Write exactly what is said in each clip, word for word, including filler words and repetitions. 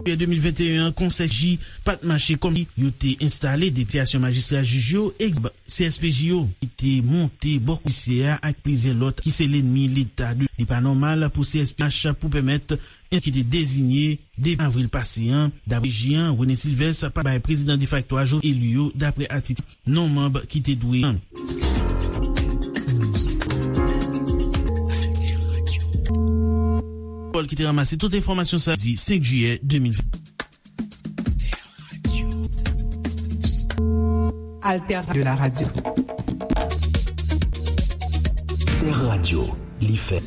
Jiyè de mil venteyen an, Konsèy C S P J pa t mache kòm yo te enstale. Depite Asosyasyon Majistra Jij yo, egzanp, C S P J yo, ki te monte bò komisè a ak plizyè lòt ki se lènmi Leta. Li pa nòmal pou C S P J pou pèmèt en ki te deziye devan avril pase an, dapre J an, René Sylvestre pa bay prezidan defakto a Jovenel eli yo, dapre atik non manb ki te dwe an. Pòl ki te ranmase tout enfòmasyon sa di senk jiyè de mil ven. Alter de la radio. Alter Radio, li fè.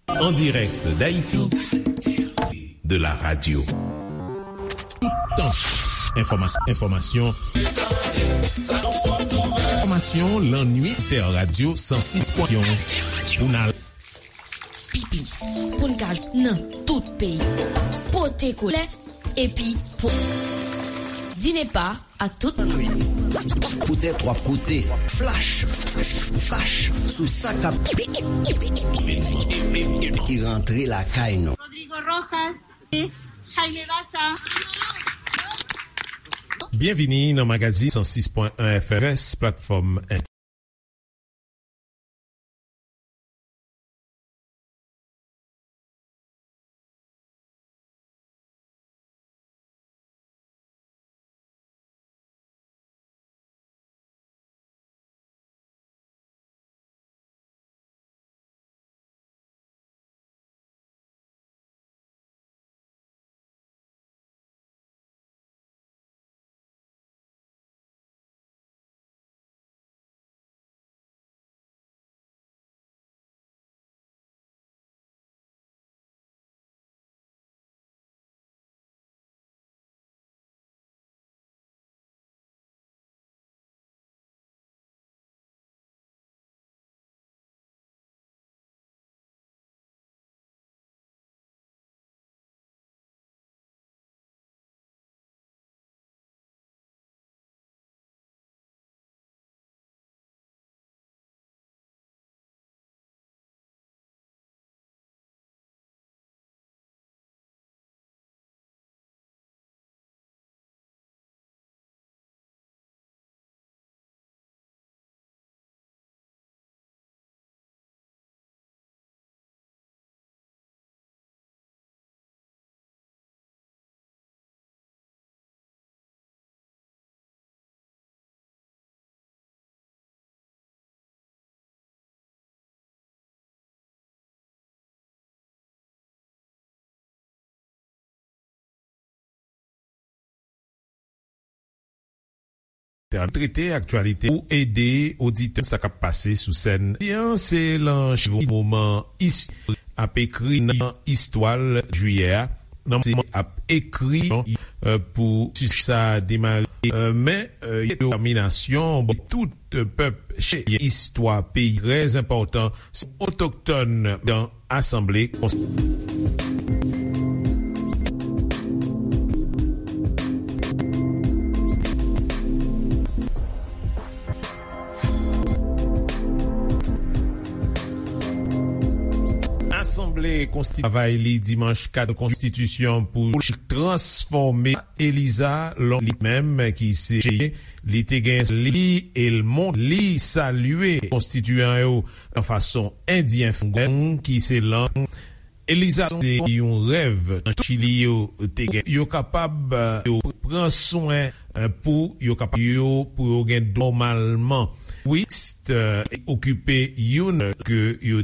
En direct d'Haïti, de la radio. Tout temps. Information, information. Information, la nuit, Alter Radio, cent six point un. Journal. Pi plis, pou n ka jwenn nan tout peyi. Pote kole, epi po. Di ne pa ak tout. Koute twa koute. Flash. Flash sou sa k ap ki rantre lakay nou. Rodrigo Rojas, Jaime Baza. Byenvini nan magazin san sis pwen en F M, platfòm Trete aktyalite pou ede oditè sa k ap pase sou sèn. Jan se lan chivo moman istorik ap ekri nan istwa jiyè a. Nan se ap ekri pou sa demare, men detèminasyon bon tout pèp cheye istwa peyi trè enpòtan, se otoktòn dan asanble konsa. Asanble konstitye travay li dimanch kat konstitisyon pou transfòme Eliza Long li menm ki se cheye li te gen li e l mont li salye konstitiyan yo nan fason endyen fongong ki se lang Eliza se yon rèv nan Chili yo te gen yo kapab yo pran swen pou yo kapab yo pou yo gen nòmalman wist okipe youn ke yo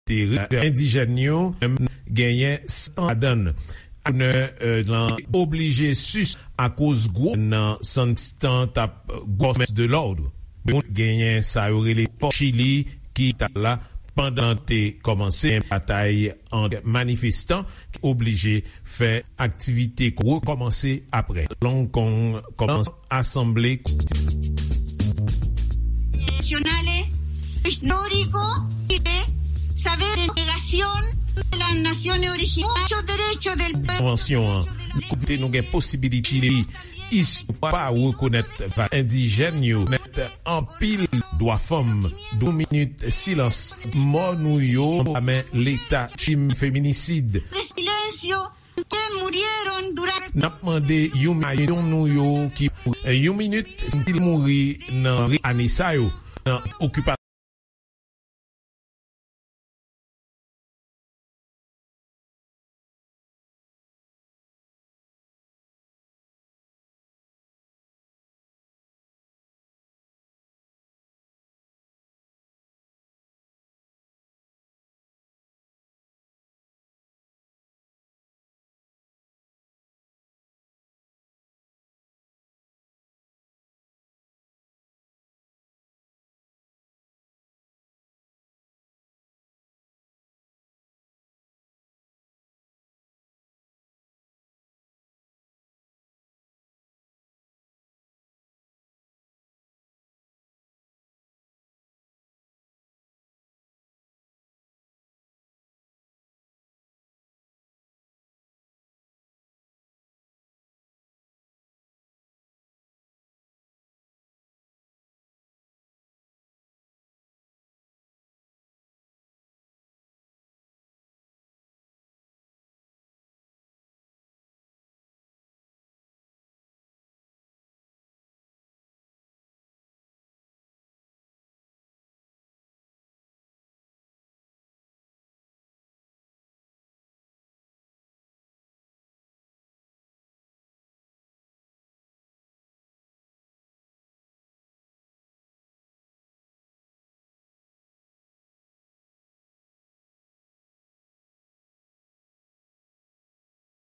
te endijèn yo, menm genyen san ladan l. Gouvènè, euh, lan oblije sis akoz gwo nan Santistan t ap gòmès de lòd. Moun genyen sa yo rele pò Chili ki t ap la pandan te kòmanse batay ant manifestan ki oblije fè aktivite rekòmanse apre. Long Kong kòmanse asanble. Nacionales, histórico, y de saber de negación de las naciones originarias, derechos del pueblo, Konvansyon an, kote nou gen posibilite istwa pa rekonèt va endijèn yo, nèt anpil dwa fanm, yon minit silans, mò nou yo, men Leta chim feminisid. De silencio, que murieron durante N ap mande yon milyon nou yo ki yon minit, si mouri nan ane sa yo, nan okipasyon.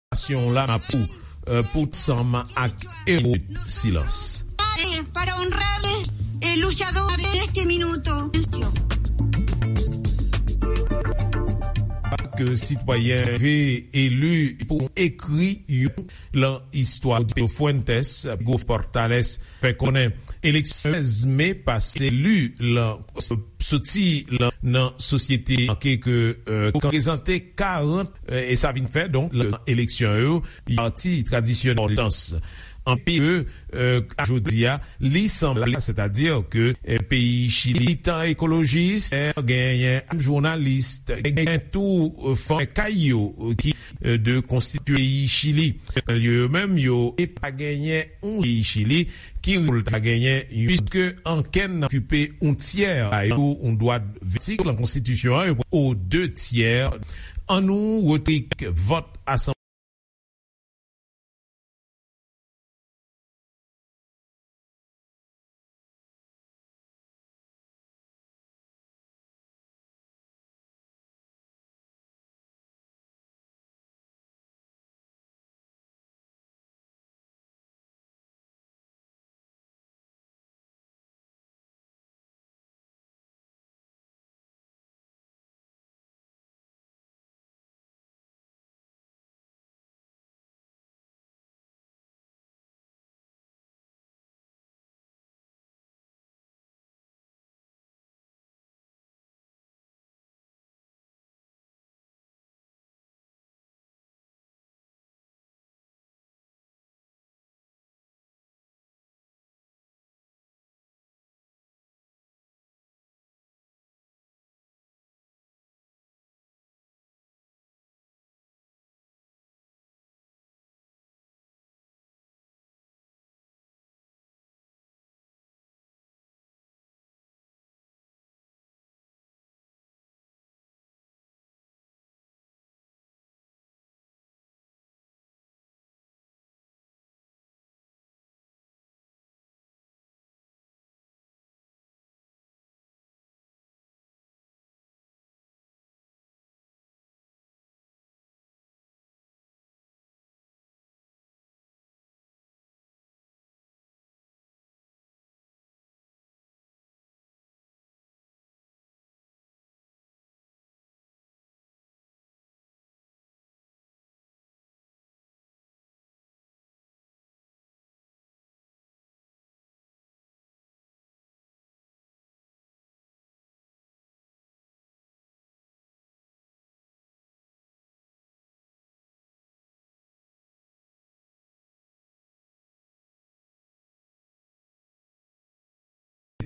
Nasyon la pou, euh, pou sanm ak ewo silans. Para honrarles, eh, luchadores de este minuto. Ke sitwayen ve eli pou ekri yon lan istwa Rodrigo Fuentes, Hugo Portales fè konnen eleksyon sèz me pase li lan soti lan nan sosyete ke, euh, prezante karant, euh, e sa vin fè donk lan eleksyon yo pati tradisyonèl dans anpi ke, euh, a jodi a li sanble, sètadi ke, euh, peyi Chili tan ekolojis genyen jounalis, genyen tou, euh, fanm kay yo, euh, ki, euh, de konstitye peyi Chili. Yo menm yo e pa genyen yon peyi Chili ki pou l ta genyen, piske ankenn okipe yon tyè a yo yon dwa vètik lan konstitisyon an, yo o de tyè. An nou retrik vòt asanble.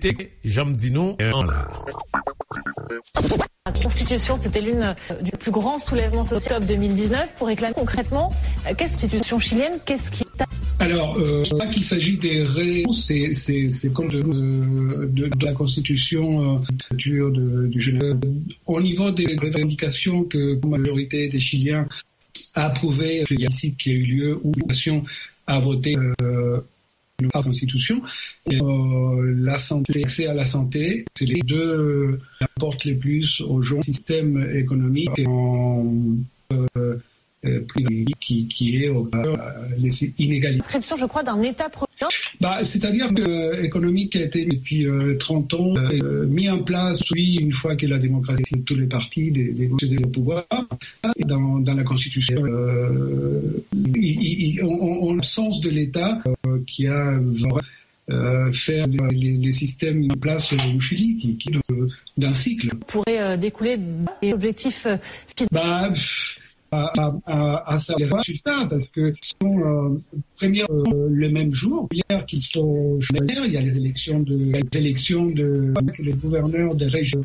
te, jan m di nou, euh, an. La Constitution, c'était l'une, euh, du plus grand soulèvement social d'octobre deux mille dix-neuf pour réclamer concrètement, euh, qu'est-ce que la Constitution chilienne, qu'est-ce qui est... Alors, euh, je crois qu'il s'agit des ré-, c'est, c'est, c'est comme de, euh, de, de la Constitution, euh, de, de, de Genève. Au niveau des revendications que la majorité des Chiliens a approuvé, il y a ici qui a eu lieu, où la population a voté, euh, la Constitution, euh, la santé, l'accès à la santé, c'est les deux qui apportent le plus aux gens, système économique en, euh, euh, privé qui, qui est au cœur, euh, les inégalités. Inscription, je crois, d'un État-providence. Bah, c'est-à-dire que, euh, économique a été depuis, euh, trente ans, euh, mis en place, oui, une fois que la démocratie, tous les partis, des, des, des pouvoirs, dans, dans la Constitution, euh, il, il, il, on, on, on, l'absence de l'État, euh, qui a euh, faire les, les, les systèmes en place au Chili, qui, qui est dans, dans un cycle. Pourrait, euh, découler des objectifs, euh, fin- Bah, pff, à, à, à, à savoir le résultat, parce que sinon, euh, première, euh, le même jour, hier qu'il faut choisir, il y a les élections de, les élections de, que les gouverneurs des régions.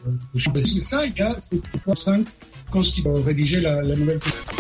Euh, c'est ça, il y a, c'est cinq constituants rédiger la, la nouvelle constitution.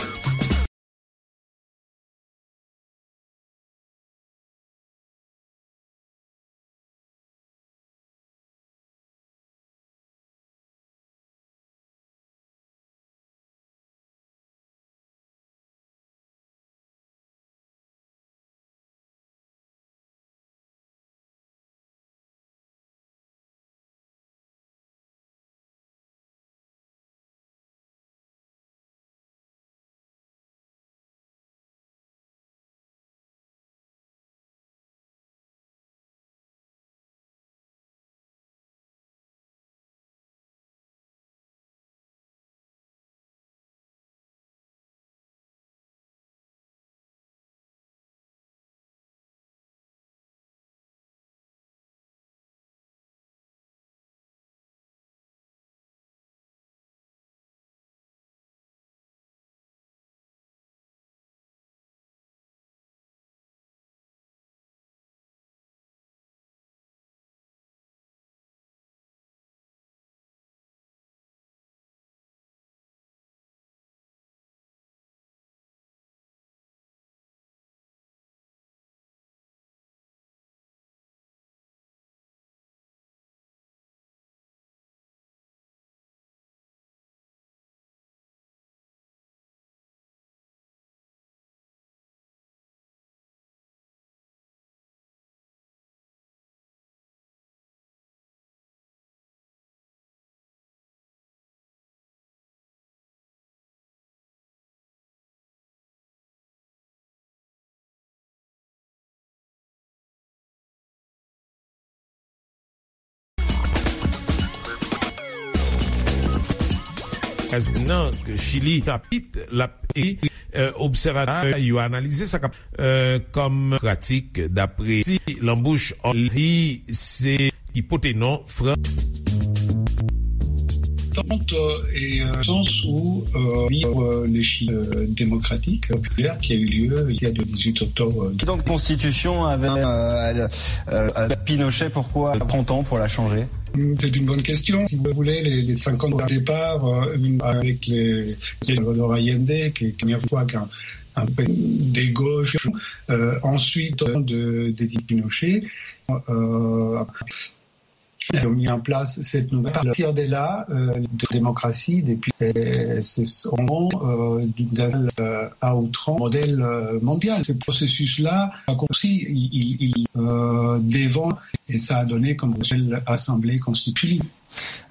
Nan Chili, chapit l ap ekri, euh, obsèvatè yo analize sa k ap, euh, kòm pratik, dapre si lanbouch li se ki pote non Fran. Tente et, euh, sens où, euh, vivre le Chili, euh, démocratique, populaire qui a eu lieu il y a le dix-huit octobre. Donc, constitution avec, euh, euh, avec Pinochet, pourquoi prend tant pour la changer ? C'est une bonne question. Si vous voulez, les, les cinquante au départ, euh, avec les, les Salvador Allende, qui est la première fois qu'un, un président de gauche, euh, ensuite de, de Pinochet, euh, ont mis en place cette nouvelle, à partir de là, euh, de démocratie, depuis, euh, c'est, on, euh, d'un, euh, à outrance, modèle, euh, mondial. Ce processus-là a aussi, il, il, il, euh, devant, et ça a donné comme modèle assemblée constituée.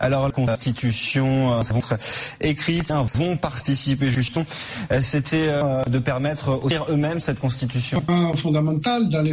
Alors, la constitution, euh, vont être écrites, hein, vont participer justement. Euh, c'était, euh, de permettre aussi eux-mêmes cette constitution. Un fondamental dans les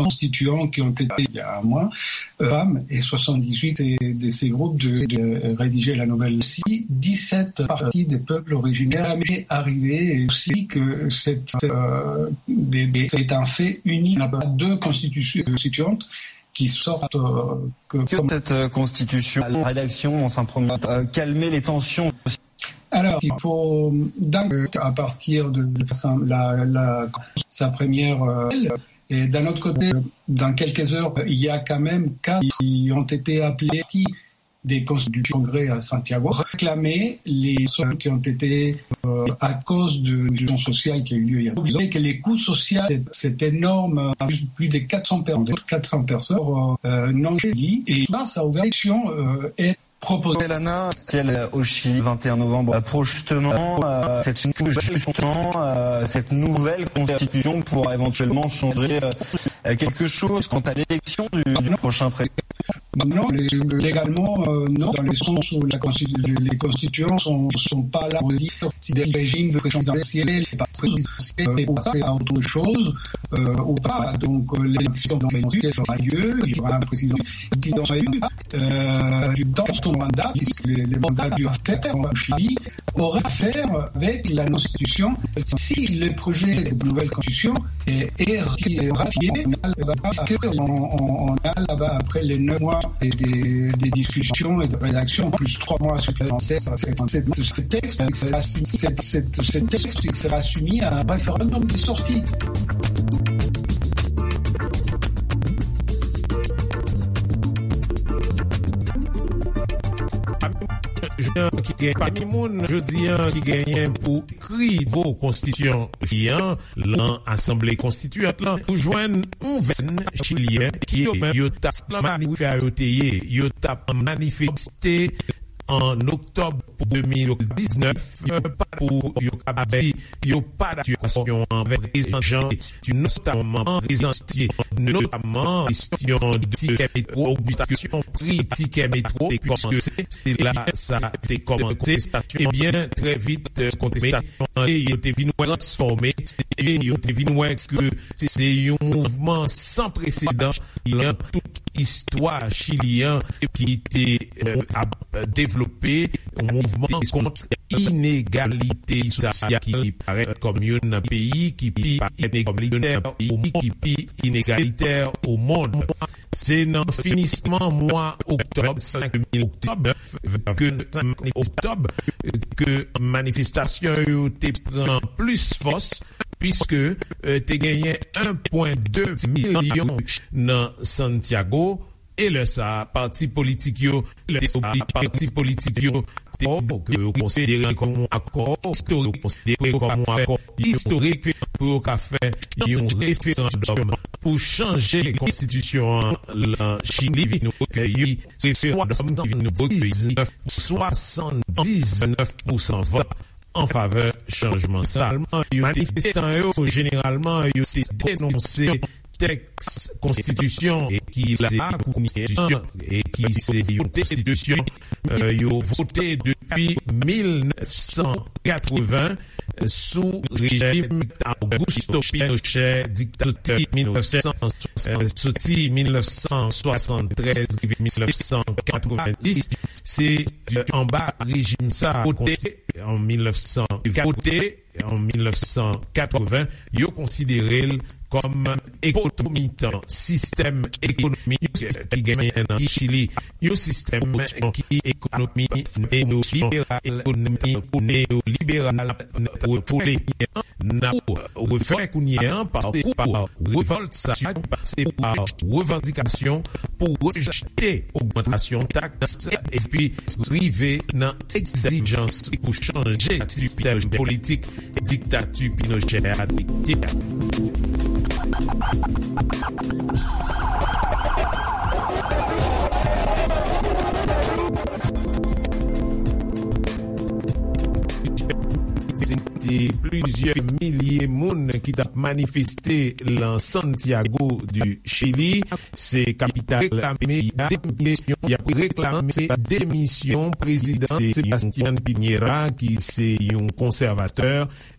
constituants qui ont été, il y a un mois, euh, femmes, et soixante-dix-huit de, de ces groupes de, de rédiger la nouvelle. Si dix-sept parties des peuples originaires arrivées, et aussi que cette, euh, des, des, c'est un fait unique. Il n'y a pas deux constitutions constituantes qui sortent, euh, que... Cette euh, constitution, la rédaction, dans un premier temps, euh, calmer les tensions. Alors, il faut, donc, à partir de, de sa, la, la, sa première, euh, et d'un autre côté, dans quelques heures, il y a quand même quatre qui ont été appelés des cons-, du Congrès à Santiago, réclamer les sommes qui ont été, euh, à cause de, du mouvement social qui a eu lieu hier. Vous savez que les coûts sociaux, c'est, c'est énorme, euh, plus, plus de quatre cents per-, quatre cents personnes, euh, non, et là, ça a ouvert l'élection, euh, et proposé. Elana, elle, euh, au Chili, vingt et un novembre, euh, pour justement, euh, cette, justement, euh, cette nouvelle constitution pour éventuellement changer, euh, euh, quelque chose quant à l'élection du, du prochain président. Non, lé-, légalement, euh, non, dans le sens où la constitu-, les constituants sont, sont pas là pour dire si des régimes de présidentielle, pas présidentielle, ou pas, c'est autre chose, euh, ou pas. Donc, euh, l'élection présidentielle aura lieu, il y aura un président, président élu, euh, dans son mandat, puisque les, les mandats du affaire en Chili, aura à faire avec la constitution. Si le projet de nouvelle constitution est, est ratifié, on a là-bas, parce que on, on, on a là-bas, après les neuf mois et des, des discussions et de rédaction, plus trois mois supplémentaires, c'est, c'est, ce texte, c'est, c'est, c'est, ce texte sera soumis à un référendum de sortie. Jodi an ki gen, pami moun jodi an ki genyen pou ekri nouvo konstitisyon Chili an lan Asanble Konstitiyant lan, ou jwenn yon vèn Chilyen ki yo menm yo t ap manifeste, yo te ye, yo t ap manifeste an oktòb pou de mil diznèf, pa pou yo kapab di yo pa dakò ak sitiyasyon an, prezante, notaman prezante, notaman kesyon de tikè metwo, ogmantasyon pri tikè metwo, piske se la sa te kòmanse. Ebyen, trè vit, kontestasyon an yo te vin wè transfòme, e yo te vin wè ke se yon mouvman san presedan nan tout istwa Chili an ki te, euh, ap devlope yon mouvman kont inegalite sosyal ki parèt kòm youn nan peyi ki pi inegalite o monn. Se nan finisman mwa oktòb, senk oktòb, ke senk oktòb, ke manifestasyon yo te pran plis fòs, piske, euh, te genyen en pwen de milyon nan Santiago, e lè sa a, pati politik yo, lè sa a, pati politik yo te, ke yo konsidere kòm yon akò istorik, konsidere kòm yon akò istorik pou yo ka fè yon referandòm pou chanje konstitisyon an lan Chili, vin rekeyi, referandòm ki vin rekeyi swasanndiznèf pousan vòt an favè chanjman sa. Yo, manifestan yo, jeneralman, yo te denonse tèks konstitisyon e ki la konstitisyon e ki se yon konstitisyon, euh, yo vote depi mil nèf san katreven sou rejim Augusto Pinochet, diktatè mil nèf san, euh, soti mil nèf san swasanntrèz rive mil nèf san katrevenndis, se, euh, anba rejim sa a, kote an mil nèf san, kote an mil nèf san katreven, yo konsidere l kòm ekonomi tan, sistèm ekonomik ki genyen nan Chili, yon sistèm ki ekonomi neyoliberal, ekonomi neyoliberal, n ap refè kounye an, pase pa revòlt sa, pase pa revandikasyon pou rejte ogmantasyon taks epi rive nan egzijans pou chanje sistèm politik diktati Pinochet a te ye a. Se te plizyè milye moun ki t ap manifeste lan Santiago du Chili. Se kapital peyi a. Y ap reklame demisyon prezidan Sebastián Piñera, ki se yon konsèvatè.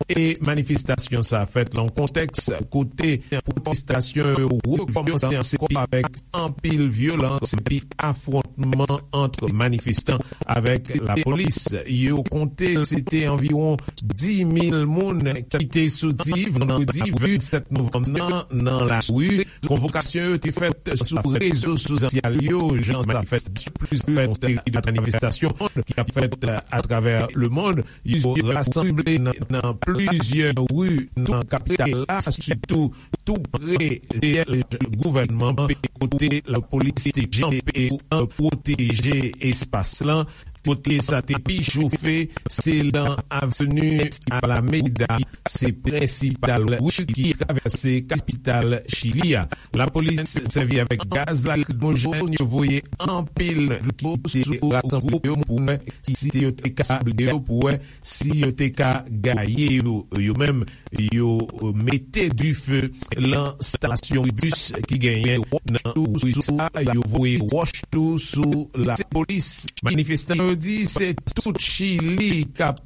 E manifestasyon sa a fèt lan kontèks kote pwotestasyon yo rekòmanse ankò avèk anpil vyolans epi afwontman ant manifestan avèk lapolis. Yo konte se te anviwon dis mil moun ki te soti vandredi vennsèt novanm nan nan lari. Konvokasyon yo te fèt sou rezo sosyal yo, jan sa fèt sou plizyè manifestasyon ki ap fèt atravè lemonn. Yo rasanble nan, nan plizyè ri nan kapital la, sitou tou pre syèj gouvènman, kote lapolis te kanpe pou pwoteje espas lan. Kote sa te pi chofe, se nan avni Alameda, se prensipal ri ki travèse kapital Chili a. Lapolis sèvi avèk gaz lakrimojèn, yo voye anpil ki te rasanble yo pou wè si yo te ka, yo pou wè si yo te ka gaye yo, yo menm, yo mete dife lan stasyon bis ki genyen nan ri sa, yo voye wòch tou sou lapolis. Manifestan yo di se tout Chili k ap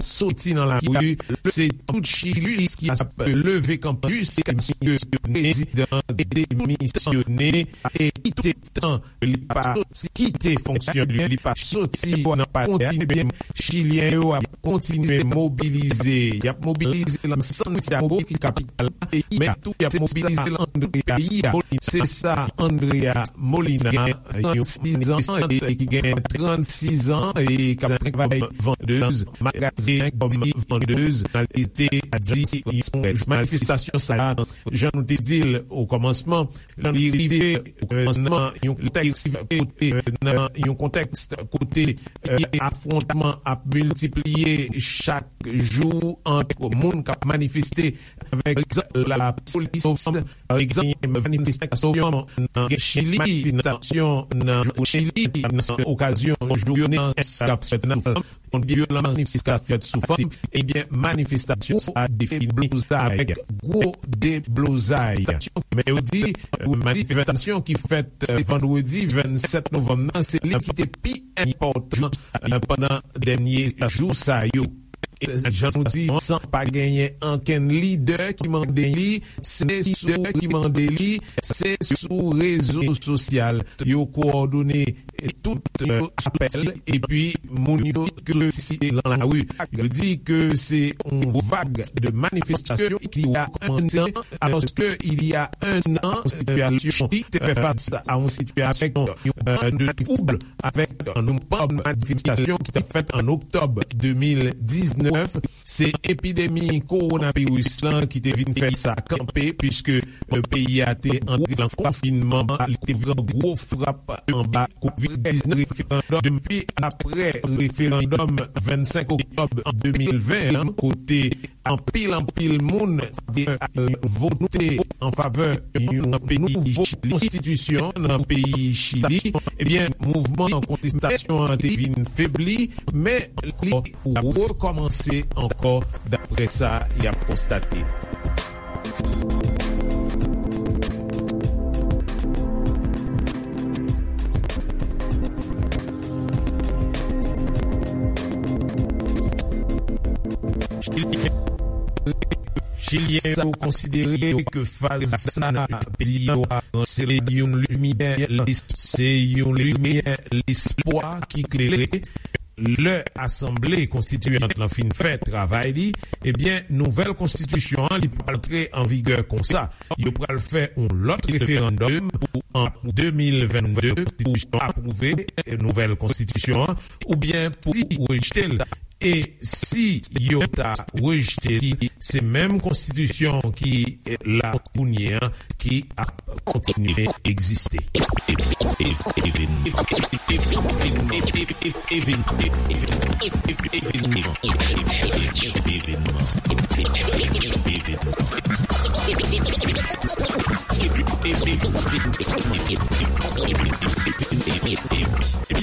soti nan lari, se tout Chili ki ap leve kanpe jiskaske prezidan demisyone e kite tan li pa kite fonksyon li, li pa soti nan palè a. Ebyen, Chilyen yo ap kontinye mobilize. Y ap mobilize lan Santiago, ki kapital peyi a, men tou y ap mobilize lan Andrea peyi a. Se sa Andrea Molina, yon trannsizan, e ki gen trannsizan e k ap travay vandez, magazen kòm vandez, li te di yon manifestasyon sa a, jan nou te di l o kòmansman, li rive nan yon kontèks kote, nan yon kontèks kote, eh, afwontman ap miltipliye chak jou ant moun k ap manifeste avèk lapolis. Pa egzanp, manifestasyon nan Chili, manifestasyon nan Chili, nan okazyon jounen k ap fèt nan yon vyolans ki ka fèt sou fanm, ebyen, manifestasyon sa a te fini blozay, gwo deblozay. Men yo di, manifestasyon ki fèt, eh, vandredi vennsèt novanm nan, se li ki te pi enpòtan, eh, pandan dènye jou sa yo. E jan nou di, san pa genyen ankenn lidè ki mande li, se lidè ki mande li, se sou rezo sosyal yo kowòdone tout, eh, apèl, epi moun yo ke site lan lari. Yo di ke se yon vag de manifestasyon ki a kòmanse, alòske il y a un an, sitiyasyon ki te fè fas a yon sitiyasyon, eh, de twoub avèk yon manifestasyon ki te fèt an oktòb de mil diznèf. Se epidemi kowonaviris lan ki te vin fè sa kanpe, piske, eh, peyi a te antre nan konfinman, li te pran gwo frap anba kovid diznèf. Depi apre referandòm vennsenk oktòb de mil ven an, kote anpil, anpil moun te vote an favè yon nouvo konstitisyon nan peyi Chili, ebyen, mouvman kontestasyon an te vin febli, men li rekòmanse ankò, daprè sa y ap konstate. Chilyen yo konsidere ke faz sa peyi yo a ranse yon limyè, se yon limyè lespwa ki klere. Lè Asanble Konstitiyant lan fin fè travay li, ebyen, nouvèl konstitisyon an, li pral antre an vigè konsa. Yo pral fè yon lòt referandòm pou an de mil vennde, pou yo apwouve nouvèl konstitisyon an, oubyen pou rejte l. E si yo ta rejte li, se menm konstitisyon ki la kounye a ki ap kontinye egziste.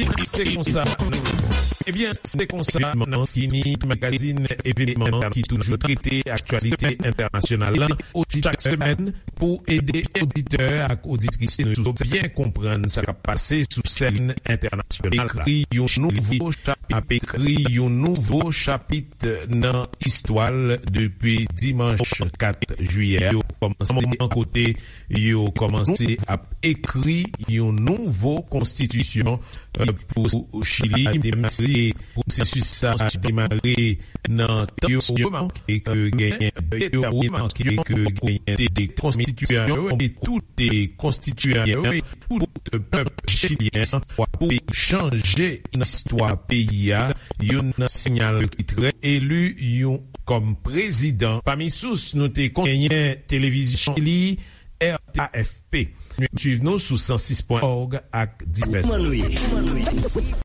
Se konsa nou, ebyen, se konsa nou fini magazin evenman ki toujou trete aktyalite entènasyonal lan. Chak semèn, pou ede oditè ak oditris nou byen konprann sa k ap pase sou sèn entènasyonal, ekri yon nouvo chapit, ap ekri yon nouvo chapit nan istwa l depi dimanch kat jiyè. Yo kòmanse an kote yo kòmanse ap ekri yon nouvo konstitisyon, eh, pou Chili. Demare, pwosesis sa demare nan tan yo remake ke genyen, yo remake ke genyen de konstitiyan yo, e tout konstitiyan yo, tout pèp chilyen an, pou chanje istwa peyi a. Youn nan sinyal ki trè, eli yon kòm prezidan. Pami sous nou te konn genyen televizyon Chili, R T A F P. Suiv nou sou san sis pwen òg ak divès. Kòman nou ye?